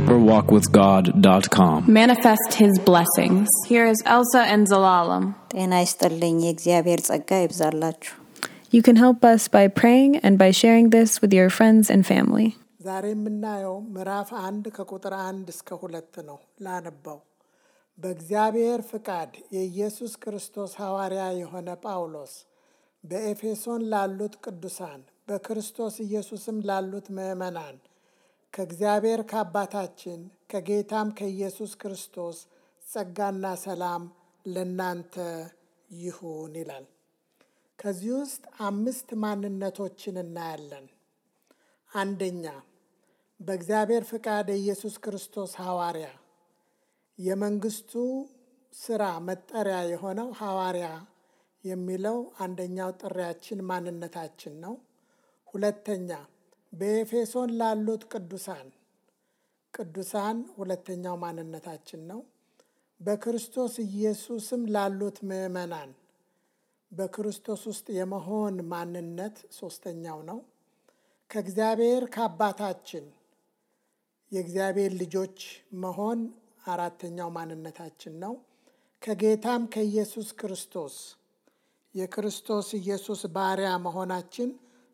deeperwalkwithgod.com. Manifest His blessings. Here is Elsa and Zalalam. ጤና ይስጥልኝ የእግዚአብሔር ጸጋ ይብዛላችሁ። You can help us by praying and by sharing this with your friends and family. ዛሬ የምናየው ምዕራፍ 1 ከቁጥር 1 እስከ 2 ነው። ላነባው። በእግዚአብሔር ፍቃድ የኢየሱስ ክርስቶስ ሐዋርያ የሆነ ጳውሎስ በኤፌሶን ላሉት ቅዱሳን በክርስቶስ ኢየሱስም ላሉት ምዕመናን ከእግዚአብሔር ከአባታችን ከጌታም ከኢየሱስ ክርስቶስ ጸጋና ሰላም ለናንተ ይሁን ይላል። ከዚህ ውስጥ 5 ማንነቶችን እናያለን። አንደኛ፣ በእግዚአብሔር ፍቃድ የኢየሱስ ክርስቶስ ሐዋርያ፣ የመንግስቱ ስራ መጠሪያ የሆነው ሐዋርያ የሚለው አንደኛው ጥሪያችን ማንነታችን ነው። ሁለተኛ፣ በኤፌሶን ላሉት ቅዱሳን ሁለተኛው ማንነታችን ነው። በክርስቶስ ኢየሱስም ላሉት ምዕመናን በክርስቶስ ውስጥ የመሆን ማንነት ሶስተኛው ነው። ከእግዚአብሔር ከአባታችን የእግዚአብሔር ልጆች መሆን አራተኛው ማንነታችን ነው። ከጌታም ከኢየሱስ ክርስቶስ የክርስቶስ ኢየሱስ ባሪያ መሆናችን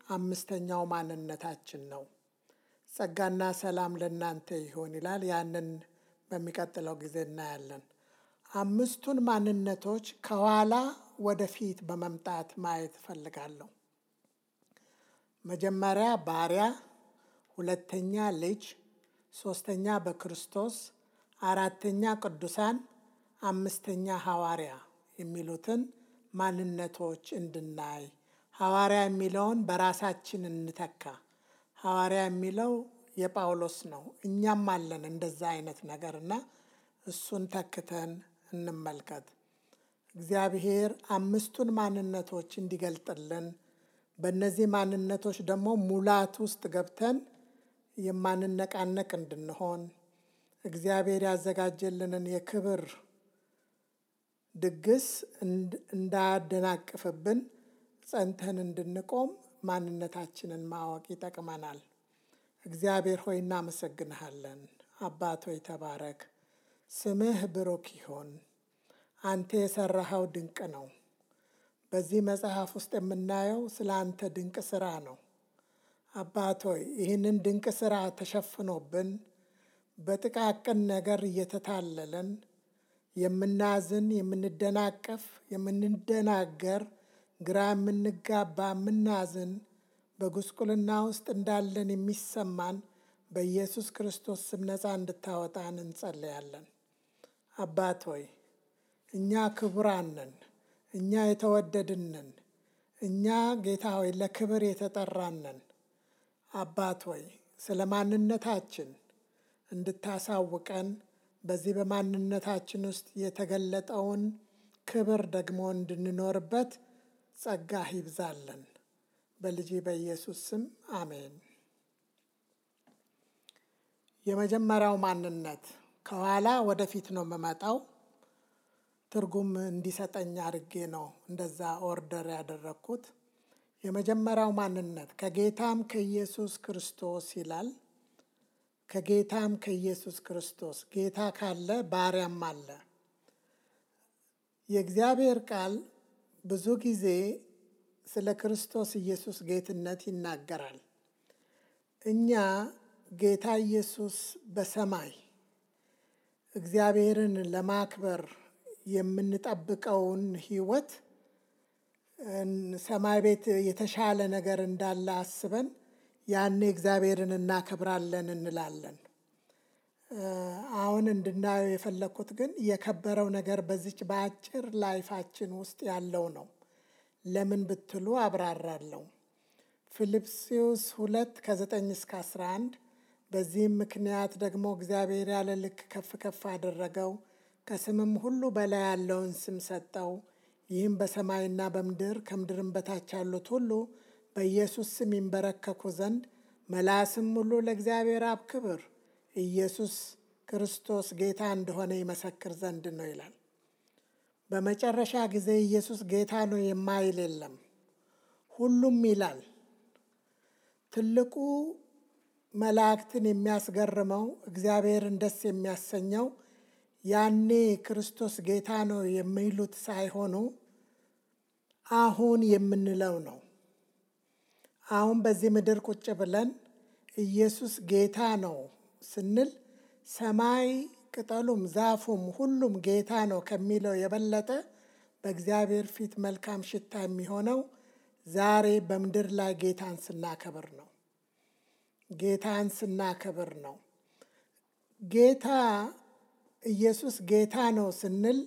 አምስተኛው ማንነታችን ነው። ጸጋና ሰላም ለናንተ ይሁን ይላል። ያንን በሚቀጥለው ጊዜ እናያለን። 5ቱን ማንነቶች ከኋላ ወደፊት በመምጣት ማየት ፈልጋለሁ። መጀመሪያ ባሪያ፣ ሁለተኛ ልጅ፣ ሶስተኛ በክርስቶስ፣ አራተኛ ቅዱሳን፣ አምስተኛ ሐዋርያ የሚሉትን ማንነቶች እንድናይ። ሐዋርያ የሚለውን በራሳችን እንተካ። ሐዋርያ የሚለው የጳውሎስ ነው። እኛም አለን እንደዛ አይነት ነገርና እሱን ተክተን እንመልከት። እግዚአብሔር 5ቱን ማንነቶች እንዲገልጥልን በእነዚህ ማንነቶች ደግሞ ሙላት ውስጥ ገብተን የማንነቃነቅ እንድንሆን እግዚአብሔር ያዘጋጀልንን የክብር ድግስ እንዳያደናቅፍብን ጸንተን እንድንቆም ማንነታችንን ማወቅ ይጠቅመናል። እግዚአብሔር ሆይ እናመሰግንሃለን። አባት ሆይ ተባረክ። ስምህ ብሩክ ይሁን። አንተ የሰራኸው ድንቅ ነው። በዚህ መጽሐፍ ውስጥ የምናየው ስለ አንተ ድንቅ ስራ ነው። አባት ሆይ ይህንን ድንቅ ስራ ተሸፍኖብን በጥቃቅን ነገር እየተታለለን የምናዝን፣ የምንደናቀፍ፣ የምንደናገር፣ ግራ የምንጋባ፣ የምናዝን፣ በጉስቁልና ውስጥ እንዳለን የሚሰማን በኢየሱስ ክርስቶስ ስም ነፃ እንድታወጣን እንጸልያለን። አባት ሆይ እኛ ክቡራን ነን፣ እኛ የተወደድን ነን፣ እኛ ጌታ ሆይ ለክብር የተጠራን ነን። አባት ሆይ ስለ ማንነታችን እንድታሳውቀን በዚህ በማንነታችን ውስጥ የተገለጠውን ክብር ደግሞ እንድንኖርበት ጸጋህ ይብዛልን። በልጅ በኢየሱስ ስም አሜን። የመጀመሪያው ማንነት ከኋላ ወደፊት ነው የምመጣው። ትርጉም እንዲሰጠኝ አድርጌ ነው እንደዛ ኦርደር ያደረግኩት። የመጀመሪያው ማንነት ከጌታም ከኢየሱስ ክርስቶስ ይላል። ከጌታም ከኢየሱስ ክርስቶስ፣ ጌታ ካለ ባሪያም አለ። የእግዚአብሔር ቃል ብዙ ጊዜ ስለ ክርስቶስ ኢየሱስ ጌትነት ይናገራል። እኛ ጌታ ኢየሱስ በሰማይ እግዚአብሔርን ለማክበር የምንጠብቀውን ሕይወት ሰማይ ቤት የተሻለ ነገር እንዳለ አስበን ያኔ እግዚአብሔርን እናከብራለን እንላለን። አሁን እንድናየው የፈለኩት ግን የከበረው ነገር በዚች በአጭር ላይፋችን ውስጥ ያለው ነው። ለምን ብትሉ አብራራለሁ። ፊልጵስዩስ 2:9-11 በዚህም ምክንያት ደግሞ እግዚአብሔር ያለ ልክ ከፍ ከፍ አደረገው፣ ከስምም ሁሉ በላይ ያለውን ስም ሰጠው። ይህም በሰማይና በምድር ከምድርም በታች ያሉት ሁሉ በኢየሱስ ስም ይንበረከኩ ዘንድ መላስም ሁሉ ለእግዚአብሔር አብ ክብር ኢየሱስ ክርስቶስ ጌታ እንደሆነ ይመሰክር ዘንድ ነው ይላል። በመጨረሻ ጊዜ ኢየሱስ ጌታ ነው የማይል የለም፣ ሁሉም ይላል። ትልቁ መላእክትን የሚያስገርመው እግዚአብሔርን ደስ የሚያሰኘው ያኔ ክርስቶስ ጌታ ነው የሚሉት ሳይሆኑ አሁን የምንለው ነው። አሁን በዚህ ምድር ቁጭ ብለን ኢየሱስ ጌታ ነው ስንል ሰማይ ቅጠሉም ዛፉም ሁሉም ጌታ ነው ከሚለው የበለጠ በእግዚአብሔር ፊት መልካም ሽታ የሚሆነው ዛሬ በምድር ላይ ጌታን ስናከብር ነው። ጌታን ስናከብር ነው። ጌታ ኢየሱስ ጌታ ነው ስንል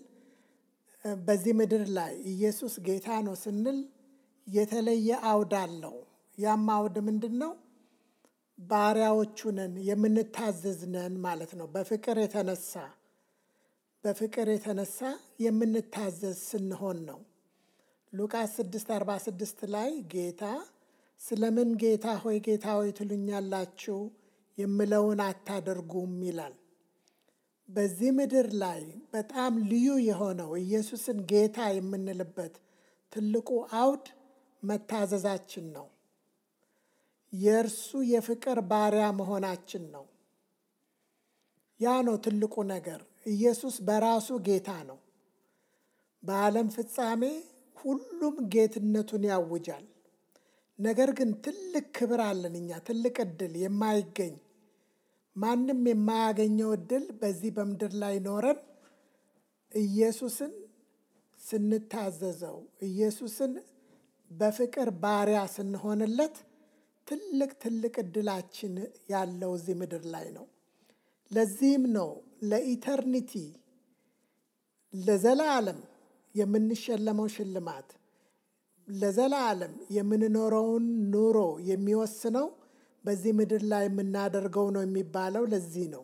በዚህ ምድር ላይ ኢየሱስ ጌታ ነው ስንል የተለየ አውድ አለው። ያም አውድ ምንድን ነው? ባሪያዎቹ ነን፣ የምንታዘዝ ነን ማለት ነው። በፍቅር የተነሳ የምንታዘዝ ስንሆን ነው። ሉቃስ 6:46 ላይ ጌታ ስለምን ጌታ ሆይ ትሉኛላችሁ የምለውን አታደርጉም ይላል። በዚህ ምድር ላይ በጣም ልዩ የሆነው ኢየሱስን ጌታ የምንልበት ትልቁ አውድ መታዘዛችን ነው። የእርሱ የፍቅር ባሪያ መሆናችን ነው። ያ ነው ትልቁ ነገር። ኢየሱስ በራሱ ጌታ ነው። በዓለም ፍጻሜ ሁሉም ጌትነቱን ያውጃል። ነገር ግን ትልቅ ክብር አለን እኛ፣ ትልቅ ዕድል የማይገኝ ማንም የማያገኘው ዕድል በዚህ በምድር ላይ ኖረን ኢየሱስን ስንታዘዘው፣ ኢየሱስን በፍቅር ባሪያ ስንሆንለት ትልቅ ዕድላችን ያለው እዚህ ምድር ላይ ነው። ለዚህም ነው ለኢተርኒቲ ለዘላለም የምንሸለመው ሽልማት፣ ለዘላለም የምንኖረውን ኑሮ የሚወስነው በዚህ ምድር ላይ የምናደርገው ነው የሚባለው ለዚህ ነው።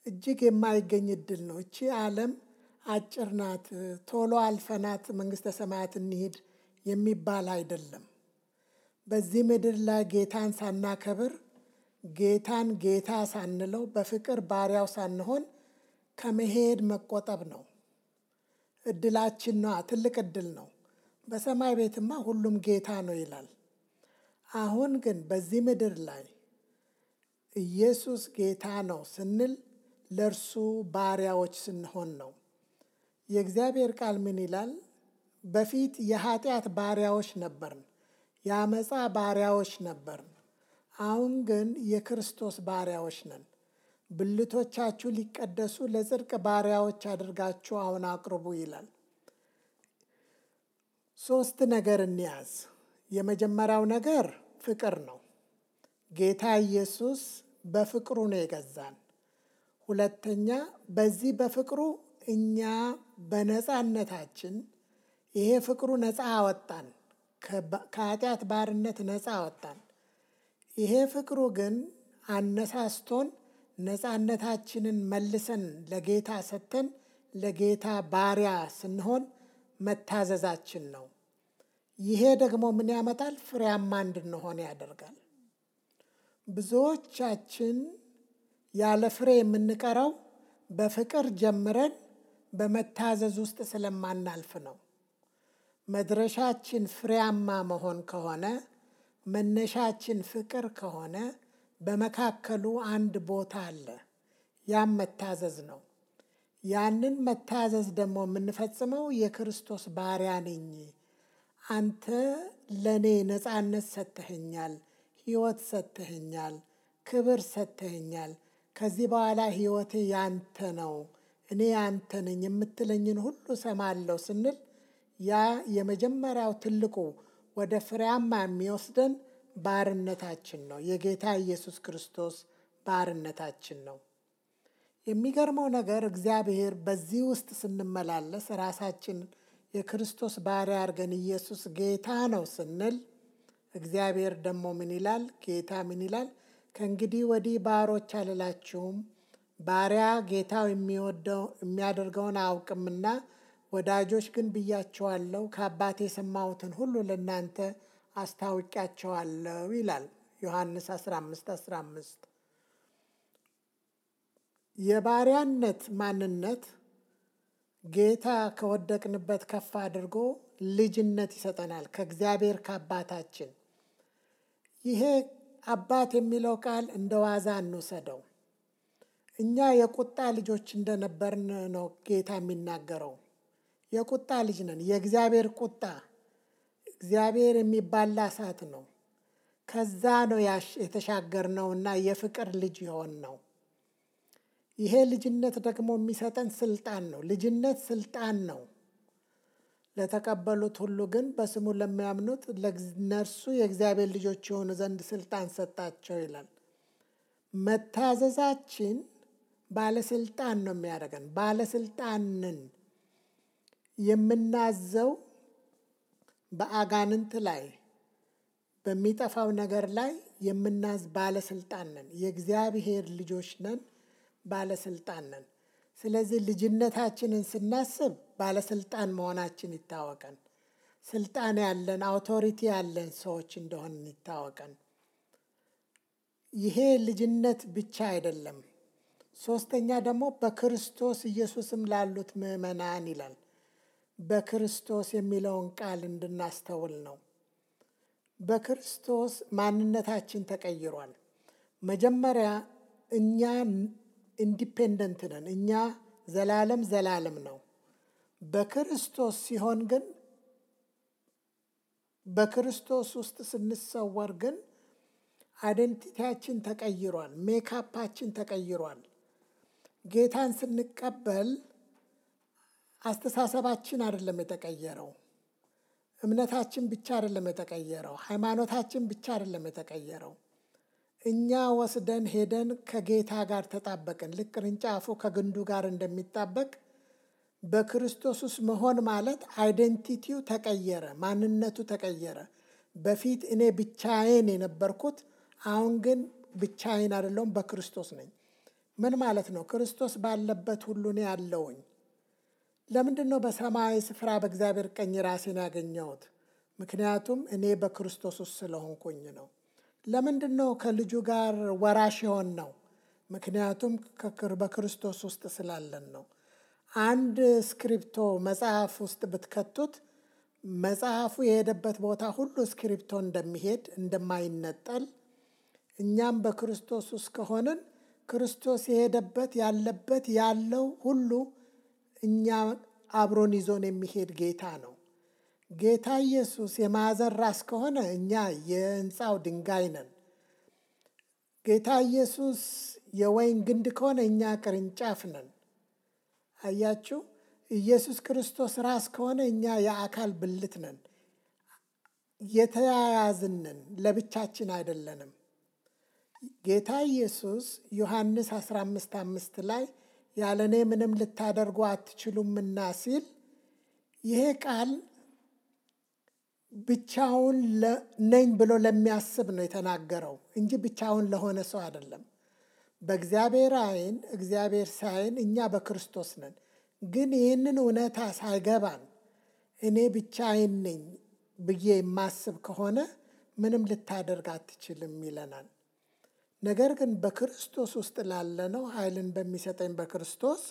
እጅግ የማይገኝ ዕድል ነው። እቺ ዓለም አጭር ናት፣ ቶሎ አልፈናት መንግሥተ ሰማያት እንሂድ የሚባል አይደለም። በዚህ ምድር ላይ ጌታን ሳናከብር፣ ጌታን ጌታ ሳንለው፣ በፍቅር ባሪያው ሳንሆን ከመሄድ መቆጠብ ነው። ዕድላችን ነዋ። ትልቅ ዕድል ነው። በሰማይ ቤትማ ሁሉም ጌታ ነው ይላል። አሁን ግን በዚህ ምድር ላይ ኢየሱስ ጌታ ነው ስንል ለእርሱ ባሪያዎች ስንሆን ነው። የእግዚአብሔር ቃል ምን ይላል? በፊት የኃጢአት ባሪያዎች ነበርን፣ የአመፃ ባሪያዎች ነበርን። አሁን ግን የክርስቶስ ባሪያዎች ነን። ብልቶቻችሁ ሊቀደሱ ለጽድቅ ባሪያዎች አድርጋችሁ አሁን አቅርቡ ይላል። 3 ነገር እንያዝ። የመጀመሪያው ነገር ፍቅር ነው። ጌታ ኢየሱስ በፍቅሩ ነው የገዛን። ሁለተኛ፣ በዚህ በፍቅሩ እኛ በነፃነታችን ይሄ ፍቅሩ ነፃ አወጣን፣ ከኃጢአት ባርነት ነፃ አወጣን። ይሄ ፍቅሩ ግን አነሳስቶን ነፃነታችንን መልሰን ለጌታ ሰጥተን ለጌታ ባሪያ ስንሆን መታዘዛችን ነው። ይሄ ደግሞ ምን ያመጣል? ፍሬያማ እንድንሆን ያደርጋል። ብዙዎቻችን ያለ ፍሬ የምንቀረው በፍቅር ጀምረን በመታዘዝ ውስጥ ስለማናልፍ ነው። መድረሻችን ፍሬያማ መሆን ከሆነ፣ መነሻችን ፍቅር ከሆነ በመካከሉ አንድ ቦታ አለ። ያም መታዘዝ ነው። ያንን መታዘዝ ደግሞ የምንፈጽመው የክርስቶስ ባሪያ ነኝ፣ አንተ ለእኔ ነፃነት ሰጥተኸኛል፣ ሕይወት ሰጥተኸኛል፣ ክብር ሰጥተኸኛል፣ ከዚህ በኋላ ሕይወቴ ያንተ ነው፣ እኔ ያንተ ነኝ፣ የምትለኝን ሁሉ ሰማለሁ ስንል ያ የመጀመሪያው ትልቁ ወደ ፍሬያማ የሚወስደን ባርነታችን ነው። የጌታ ኢየሱስ ክርስቶስ ባርነታችን ነው። የሚገርመው ነገር እግዚአብሔር በዚህ ውስጥ ስንመላለስ ራሳችን የክርስቶስ ባሪያ አድርገን ኢየሱስ ጌታ ነው ስንል እግዚአብሔር ደግሞ ምን ይላል? ጌታ ምን ይላል? ከእንግዲህ ወዲህ ባሮች አልላችሁም፣ ባሪያ ጌታው የሚያደርገውን አያውቅምና ወዳጆች ግን ብያችኋለሁ፣ ከአባቴ የሰማሁትን ሁሉ ለእናንተ አስታውቂያቸዋለሁ ይላል ዮሐንስ 15:15። የባሪያነት ማንነት ጌታ ከወደቅንበት ከፍ አድርጎ ልጅነት ይሰጠናል ከእግዚአብሔር ከአባታችን። ይሄ አባት የሚለው ቃል እንደ ዋዛ እንውሰደው። እኛ የቁጣ ልጆች እንደነበርን ነው ጌታ የሚናገረው። የቁጣ ልጅ ነን። የእግዚአብሔር ቁጣ፣ እግዚአብሔር የሚባላ እሳት ነው። ከዛ ነው የተሻገርነውና የፍቅር ልጅ የሆን ነው። ይሄ ልጅነት ደግሞ የሚሰጠን ስልጣን ነው። ልጅነት ስልጣን ነው። ለተቀበሉት ሁሉ ግን በስሙ ለሚያምኑት ለእነርሱ የእግዚአብሔር ልጆች የሆኑ ዘንድ ስልጣን ሰጣቸው ይላል። መታዘዛችን ባለስልጣን ነው የሚያደርገን። ባለስልጣንን የምናዘው በአጋንንት ላይ በሚጠፋው ነገር ላይ የምናዝ ባለስልጣን ነን። የእግዚአብሔር ልጆች ነን፣ ባለስልጣን ነን። ስለዚህ ልጅነታችንን ስናስብ ባለስልጣን መሆናችን ይታወቀን። ስልጣን ያለን አውቶሪቲ ያለን ሰዎች እንደሆን ይታወቀን። ይሄ ልጅነት ብቻ አይደለም። ሶስተኛ ደግሞ በክርስቶስ ኢየሱስም ላሉት ምዕመናን ይላል። በክርስቶስ የሚለውን ቃል እንድናስተውል ነው። በክርስቶስ ማንነታችን ተቀይሯል። መጀመሪያ እኛ ኢንዲፔንደንት ነን። እኛ ዘላለም ነው። በክርስቶስ ሲሆን ግን በክርስቶስ ውስጥ ስንሰወር ግን አይደንቲቲያችን ተቀይሯል። ሜካፓችን ተቀይሯል። ጌታን ስንቀበል አስተሳሰባችን አይደለም የተቀየረው። እምነታችን ብቻ አይደለም የተቀየረው። ሃይማኖታችን ብቻ አይደለም የተቀየረው። እኛ ወስደን ሄደን ከጌታ ጋር ተጣበቅን። ልክ ቅርንጫፉ ከግንዱ ጋር እንደሚጣበቅ በክርስቶስ ውስጥ መሆን ማለት አይደንቲቲው ተቀየረ፣ ማንነቱ ተቀየረ። በፊት እኔ ብቻዬን የነበርኩት አሁን ግን ብቻዬን አይደለሁም፣ በክርስቶስ ነኝ። ምን ማለት ነው? ክርስቶስ ባለበት ሁሉ እኔ አለሁኝ። ለምንድን ነው በሰማያዊ ስፍራ በእግዚአብሔር ቀኝ ራሴን ያገኘሁት? ምክንያቱም እኔ በክርስቶስ ውስጥ ስለሆንኩኝ ነው። ለምንድን ነው ከልጁ ጋር ወራሽ የሆን ነው? ምክንያቱም በክርስቶስ ውስጥ ስላለን ነው። አንድ ስክሪፕቶ መጽሐፍ ውስጥ ብትከቱት መጽሐፉ የሄደበት ቦታ ሁሉ ስክሪፕቶ እንደሚሄድ እንደማይነጠል፣ እኛም በክርስቶስ ውስጥ ከሆንን ክርስቶስ የሄደበት ያለበት ያለው ሁሉ እኛ አብሮን ይዞን የሚሄድ ጌታ ነው። ጌታ ኢየሱስ የማዕዘን ራስ ከሆነ እኛ የሕንፃው ድንጋይ ነን። ጌታ ኢየሱስ የወይን ግንድ ከሆነ እኛ ቅርንጫፍ ነን። አያችሁ፣ ኢየሱስ ክርስቶስ ራስ ከሆነ እኛ የአካል ብልት ነን። የተያያዝንን ለብቻችን አይደለንም። ጌታ ኢየሱስ ዮሐንስ 15:5 ላይ ያለ እኔ ምንም ልታደርጉ አትችሉምና ሲል ይሄ ቃል ብቻውን ነኝ ብሎ ለሚያስብ ነው የተናገረው እንጂ ብቻውን ለሆነ ሰው አይደለም። በእግዚአብሔር ዓይን እግዚአብሔር ሳይን እኛ በክርስቶስ ነን። ግን ይህንን እውነታ ሳይገባን እኔ ብቻዬን ነኝ ብዬ የማስብ ከሆነ ምንም ልታደርግ አትችልም ይለናል። ነገር ግን በክርስቶስ ውስጥ ላለነው ኃይልን በሚሰጠኝ በክርስቶስ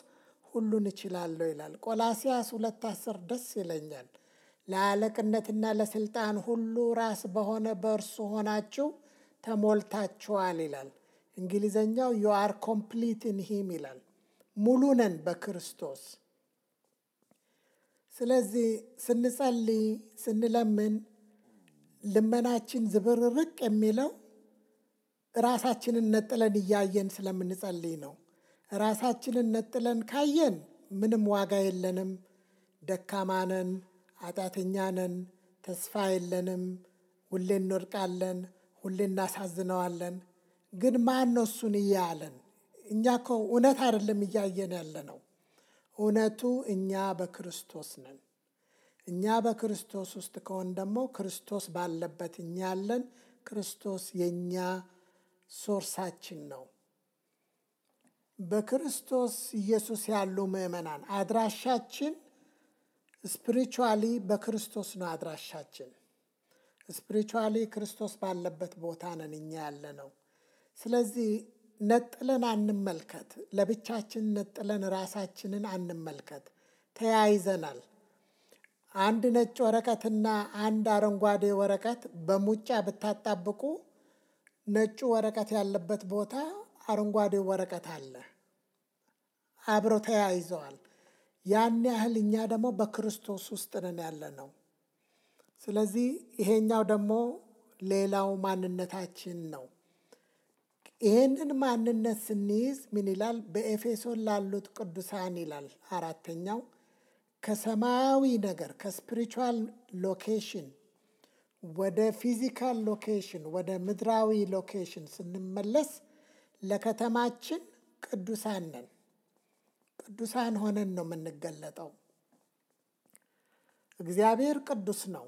ሁሉን እችላለሁ ይላል። ቆላስይስ 2:10 ደስ ይለኛል። ለአለቅነትና ለስልጣን ሁሉ ራስ በሆነ በእርሱ ሆናችሁ ተሞልታችኋል ይላል። እንግሊዘኛው you are complete in him ይላል። ሙሉ ነን በክርስቶስ። ስለዚህ ስንጸልይ ስንለምን ልመናችን ዝብርርቅ የሚለው ራሳችንን ነጥለን እያየን ስለምንጸልይ ነው። ራሳችንን ነጥለን ካየን ምንም ዋጋ የለንም፣ ደካማ ነን፣ ኃጢአተኛ ነን፣ ተስፋ የለንም፣ ሁሌ እንወድቃለን፣ ሁሌ እናሳዝነዋለን። ግን ማን ነው እሱን እያለን? እኛ እኮ እውነት አይደለም እያየን ያለ ነው። እውነቱ እኛ በክርስቶስ ነን። እኛ በክርስቶስ ውስጥ ከሆን ደግሞ ክርስቶስ ባለበት እኛ ያለን፣ ክርስቶስ የእኛ ሶርሳችን ነው። በክርስቶስ ኢየሱስ ያሉ ምዕመናን አድራሻችን ስፒሪቹዋሊ በክርስቶስ ነው። አድራሻችን ስፒሪቹዋሊ ክርስቶስ ባለበት ቦታ ነን እኛ ያለ ነው። ስለዚህ ነጥለን አንመልከት። ለብቻችን ነጥለን ራሳችንን አንመልከት። ተያይዘናል። አንድ ነጭ ወረቀትና አንድ አረንጓዴ ወረቀት በሙጫ ብታጣብቁ ነጩ ወረቀት ያለበት ቦታ አረንጓዴው ወረቀት አለ። አብረው ተያይዘዋል። ያን ያህል እኛ ደግሞ በክርስቶስ ውስጥ ነን ያለነው። ስለዚህ ይሄኛው ደግሞ ሌላው ማንነታችን ነው። ይሄንን ማንነት ስንይዝ ምን ይላል? በኤፌሶን ላሉት ቅዱሳን ይላል 4ኛው ከሰማያዊ ነገር ከስፒሪቹዋል ሎኬሽን ወደ ፊዚካል ሎኬሽን ወደ ምድራዊ ሎኬሽን ስንመለስ ለከተማችን ቅዱሳን ነን። ቅዱሳን ሆነን ነው የምንገለጠው። እግዚአብሔር ቅዱስ ነው።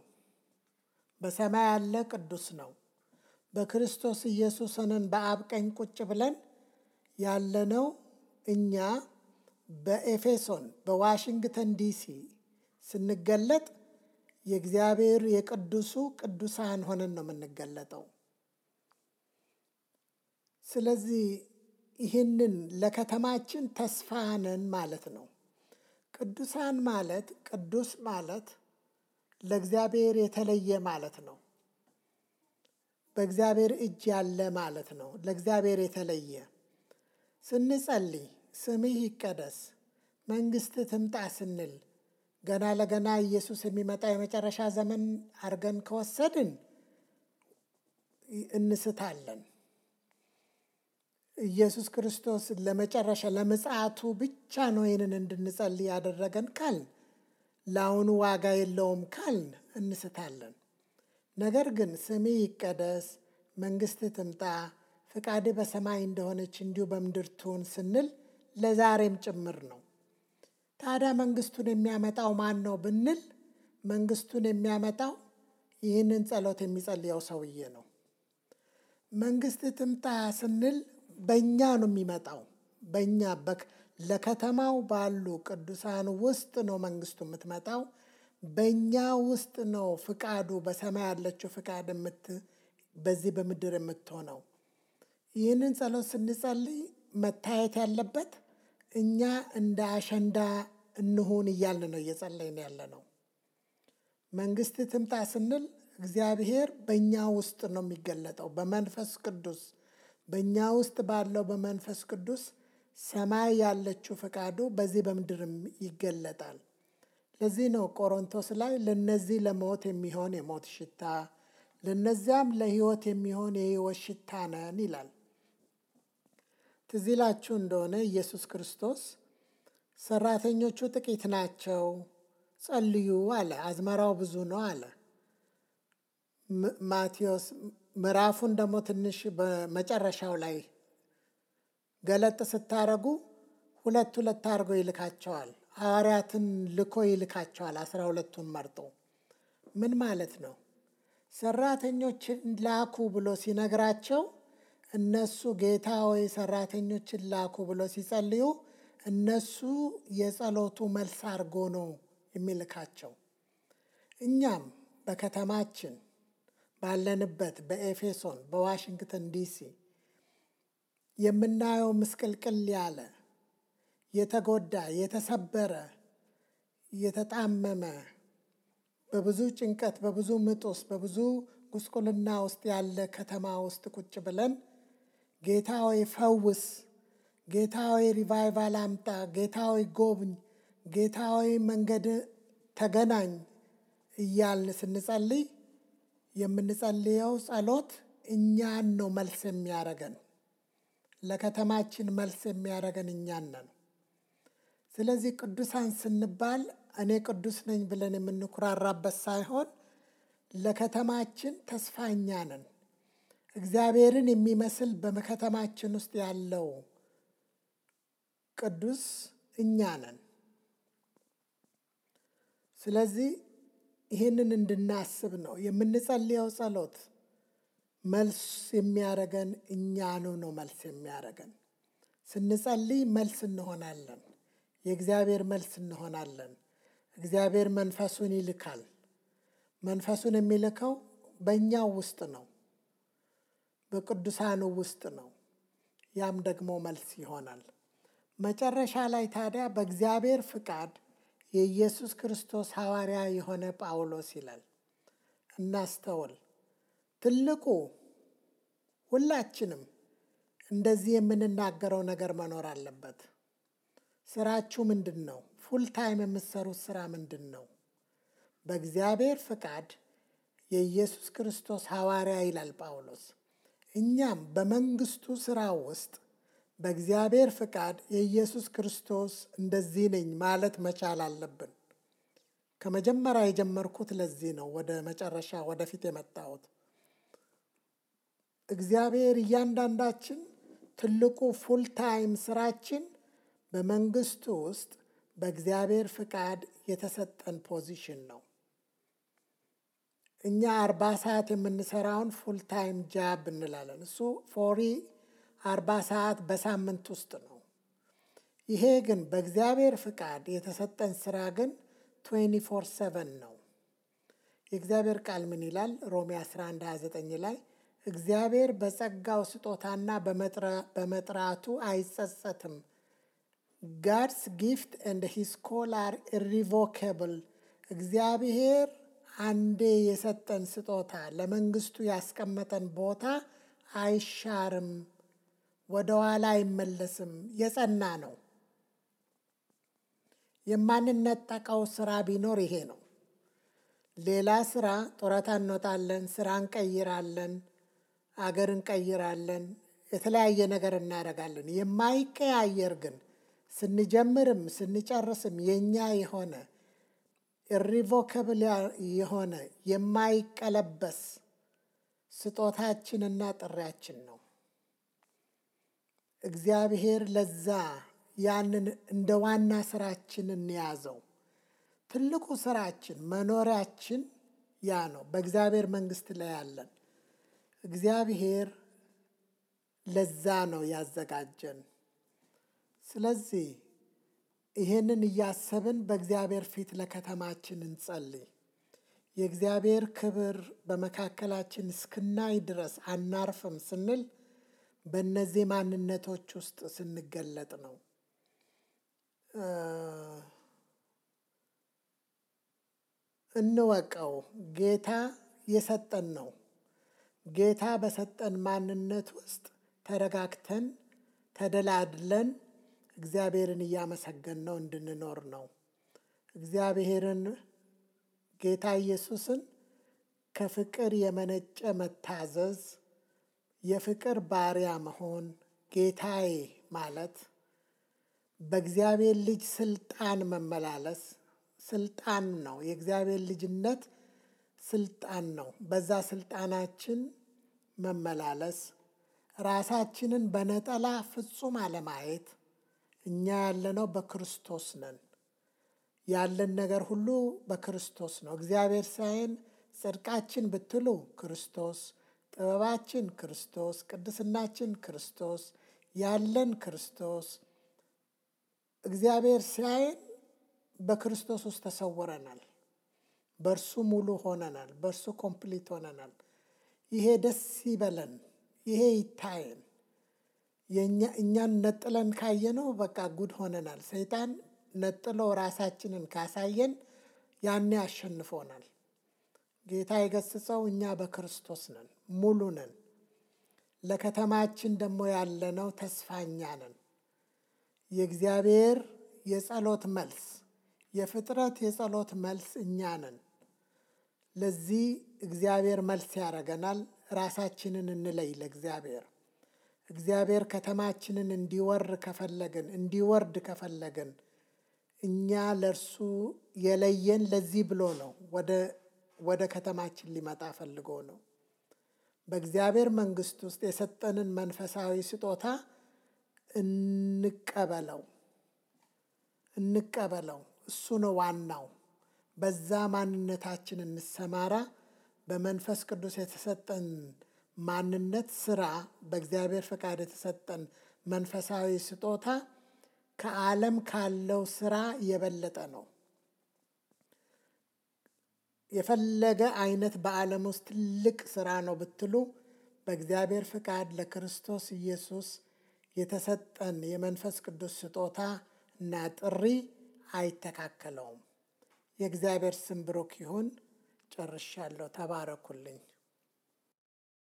በሰማይ ያለ ቅዱስ ነው። በክርስቶስ ኢየሱስ ሆነን በአብ ቀኝ ቁጭ ብለን ያለነው እኛ በኤፌሶን በዋሽንግተን ዲሲ ስንገለጥ የእግዚአብሔር የቅዱሱ ቅዱሳን ሆነን ነው የምንገለጠው። ስለዚህ ይህንን ለከተማችን ተስፋ ነን ማለት ነው። ቅዱሳን ማለት ቅዱስ ማለት ለእግዚአብሔር የተለየ ማለት ነው። በእግዚአብሔር እጅ ያለ ማለት ነው። ለእግዚአብሔር የተለየ ስንጸልይ ስምህ ይቀደስ መንግሥትህ ትምጣ ስንል ገና ለገና ኢየሱስ የሚመጣ የመጨረሻ ዘመን አድርገን ከወሰድን እንስታለን። ኢየሱስ ክርስቶስ ለመጨረሻ ለምጽአቱ ብቻ ነው ይህንን እንድንጸልይ ያደረገን ካልን ለአሁኑ ዋጋ የለውም ካልን እንስታለን። ነገር ግን ስምህ ይቀደስ መንግሥትህ ትምጣ ፍቃድህ በሰማይ እንደሆነች እንዲሁ በምድር ትሁን ስንል ለዛሬም ጭምር ነው። ታዲያ መንግሥቱን የሚያመጣው ማን ነው ብንል መንግሥቱን የሚያመጣው ይህንን ጸሎት የሚጸልየው ሰውዬ ነው። መንግሥትህ ትምጣ ስንል በእኛ ነው የሚመጣው። በእኛ ለከተማው ባሉ ቅዱሳን ውስጥ ነው መንግሥቱ የምትመጣው። በእኛ ውስጥ ነው ፍቃዱ በሰማይ ያለችው ፍቃድ በዚህ በምድር የምትሆነው። ይህንን ጸሎት ስንጸልይ መታየት ያለበት እኛ እንደ አሸንዳ እንሁን እያልን ነው እየጸለይን ያለ ነው። መንግሥትህ ትምጣ ስንል እግዚአብሔር በእኛ ውስጥ ነው የሚገለጠው በመንፈስ ቅዱስ። በእኛ ውስጥ ባለው በመንፈስ ቅዱስ ሰማይ ያለችው ፈቃዱ በዚህ በምድርም ይገለጣል። ለዚህ ነው ቆሮንቶስ ላይ ለነዚህ ለሞት የሚሆን የሞት ሽታ ለነዚያም ለሕይወት የሚሆን የሕይወት ሽታ ነን ይላል። ትዝ ይላችሁ እንደሆነ ኢየሱስ ክርስቶስ ሰራተኞቹ ጥቂት ናቸው ጸልዩ አለ። አዝመራው ብዙ ነው አለ። ማቴዎስ ምዕራፉን ደግሞ ትንሽ በመጨረሻው ላይ ገለጥ ስታረጉ ሁለት አድርጎ ይልካቸዋል። ሐዋርያትን ልኮ ይልካቸዋል 12ቱን መርጦ። ምን ማለት ነው? ሰራተኞችን ላኩ ብሎ ሲነግራቸው እነሱ ጌታ ሆይ ሰራተኞችን ላኩ ብሎ ሲጸልዩ እነሱ የጸሎቱ መልስ አድርጎ ነው የሚልካቸው። እኛም በከተማችን ባለንበት በኤፌሶን በዋሽንግተን ዲሲ የምናየው ምስቅልቅል ያለ የተጎዳ የተሰበረ የተጣመመ በብዙ ጭንቀት በብዙ ምጥ ውስጥ በብዙ ጉስቁልና ውስጥ ያለ ከተማ ውስጥ ቁጭ ብለን ጌታ ሆይ ፈውስ፣ ጌታ ሆይ ሪቫይቫል አምጣ፣ ጌታ ሆይ ጎብኝ፣ ጌታ ሆይ መንገድ ተገናኝ እያልን ስንጸልይ የምንጸልየው ጸሎት እኛን ነው መልስ የሚያደርገን። ለከተማችን መልስ የሚያደርገን እኛን ነን። ስለዚህ ቅዱሳን ስንባል እኔ ቅዱስ ነኝ ብለን የምንኩራራበት ሳይሆን ለከተማችን ተስፋ እኛ ነን። እግዚአብሔርን የሚመስል በከተማችን ውስጥ ያለው ቅዱስ እኛ ነን። ስለዚህ ይህንን እንድናስብ ነው የምንጸልየው ጸሎት መልስ የሚያደርገን እኛኑ ነው። መልስ የሚያደርገን ስንጸልይ መልስ እንሆናለን። የእግዚአብሔር መልስ እንሆናለን። እግዚአብሔር መንፈሱን ይልካል። መንፈሱን የሚልከው በእኛው ውስጥ ነው፣ በቅዱሳኑ ውስጥ ነው። ያም ደግሞ መልስ ይሆናል። መጨረሻ ላይ ታዲያ በእግዚአብሔር ፍቃድ የኢየሱስ ክርስቶስ ሐዋርያ የሆነ ጳውሎስ ይላል። እናስተውል። ትልቁ ሁላችንም እንደዚህ የምንናገረው ነገር መኖር አለበት። ስራችሁ ምንድን ነው? ፉል ታይም የምትሰሩት ስራ ምንድን ነው? በእግዚአብሔር ፍቃድ የኢየሱስ ክርስቶስ ሐዋርያ ይላል ጳውሎስ። እኛም በመንግስቱ ስራ ውስጥ በእግዚአብሔር ፍቃድ የኢየሱስ ክርስቶስ እንደዚህ ነኝ ማለት መቻል አለብን። ከመጀመሪያ የጀመርኩት ለዚህ ነው ወደ መጨረሻ ወደፊት የመጣሁት። እግዚአብሔር እያንዳንዳችን ትልቁ ፉል ታይም ስራችን በመንግስቱ ውስጥ በእግዚአብሔር ፍቃድ የተሰጠን ፖዚሽን ነው። እኛ 40 ሰዓት የምንሰራውን ፉል ታይም ጃብ እንላለን። እሱ 40 ሰዓት በሳምንት ውስጥ ነው። ይሄ ግን በእግዚአብሔር ፍቃድ የተሰጠን ስራ ግን 24/7 ነው። የእግዚአብሔር ቃል ምን ይላል? ሮሜ 11:29 ላይ እግዚአብሔር በጸጋው ስጦታና በመጥራቱ አይጸጸትም። God's gift and his call are irrevocable. እግዚአብሔር አንዴ የሰጠን ስጦታ ለመንግስቱ ያስቀመጠን ቦታ አይሻርም፣ ወደ ኋላ አይመለስም፣ የጸና ነው። የማንነጠቀው ስራ ቢኖር ይሄ ነው። ሌላ ስራ ጡረታ እንወጣለን፣ ስራ እንቀይራለን፣ አገር እንቀይራለን፣ የተለያየ ነገር እናደርጋለን። የማይቀያየር ግን ስንጀምርም ስንጨርስም የኛ የሆነ ኢሪቮከብል የሆነ የማይቀለበስ ስጦታችንና ጥሪያችን ነው። እግዚአብሔር ለዛ ያንን እንደ ዋና ስራችን እንያዘው። ትልቁ ስራችን መኖሪያችን ያ ነው። በእግዚአብሔር መንግስት ላይ ያለን እግዚአብሔር ለዛ ነው ያዘጋጀን። ስለዚህ ይሄንን እያሰብን በእግዚአብሔር ፊት ለከተማችን እንጸልይ። የእግዚአብሔር ክብር በመካከላችን እስክናይ ድረስ አናርፍም ስንል በእነዚህ ማንነቶች ውስጥ ስንገለጥ ነው። እንወቀው፣ ጌታ የሰጠን ነው። ጌታ በሰጠን ማንነት ውስጥ ተረጋግተን ተደላድለን እግዚአብሔርን እያመሰገን ነው እንድንኖር ነው። እግዚአብሔርን ጌታ ኢየሱስን ከፍቅር የመነጨ መታዘዝ፣ የፍቅር ባሪያ መሆን፣ ጌታዬ ማለት በእግዚአብሔር ልጅ ስልጣን መመላለስ ስልጣን ነው። የእግዚአብሔር ልጅነት ስልጣን ነው። በዛ ስልጣናችን መመላለስ፣ ራሳችንን በነጠላ ፍጹም አለማየት። እኛ ያለነው በክርስቶስ ነን። ያለን ነገር ሁሉ በክርስቶስ ነው። እግዚአብሔር ሳይን ጽድቃችን ብትሉ ክርስቶስ፣ ጥበባችን ክርስቶስ፣ ቅድስናችን ክርስቶስ፣ ያለን ክርስቶስ። እግዚአብሔር ሲያየን በክርስቶስ ውስጥ ተሰውረናል። በእርሱ ሙሉ ሆነናል። በእርሱ ኮምፕሊት ሆነናል። ይሄ ደስ ይበለን። ይሄ ይታየን። እኛን ነጥለን ካየነው በቃ ጉድ ሆነናል። ሰይጣን ነጥሎ ራሳችንን ካሳየን ያኔ አሸንፎናል። ጌታ የገሰጸው እኛ በክርስቶስ ነን፣ ሙሉ ነን። ለከተማችን ደግሞ ያለነው ተስፋኛ ነን። የእግዚአብሔር የጸሎት መልስ፣ የፍጥረት የጸሎት መልስ እኛ ነን። ለዚህ እግዚአብሔር መልስ ያደርገናል። ራሳችንን እንለይ ለእግዚአብሔር። እግዚአብሔር ከተማችንን እንዲወርድ ከፈለግን እኛ ለእርሱ የለየን ለዚህ ብሎ ነው። ወደ ከተማችን ሊመጣ ፈልጎ ነው። በእግዚአብሔር መንግስት ውስጥ የሰጠንን መንፈሳዊ ስጦታ እንቀበለው። እሱ ነው ዋናው። በዛ ማንነታችን እንሰማራ። በመንፈስ ቅዱስ የተሰጠን ማንነት ስራ፣ በእግዚአብሔር ፈቃድ የተሰጠን መንፈሳዊ ስጦታ ከዓለም ካለው ስራ የበለጠ ነው። የፈለገ አይነት በዓለም ውስጥ ትልቅ ስራ ነው ብትሉ በእግዚአብሔር ፈቃድ ለክርስቶስ ኢየሱስ የተሰጠን የመንፈስ ቅዱስ ስጦታ እና ጥሪ አይተካከለውም። የእግዚአብሔር ስም ብሩክ ይሁን። ጨርሻለሁ። ተባረኩልኝ።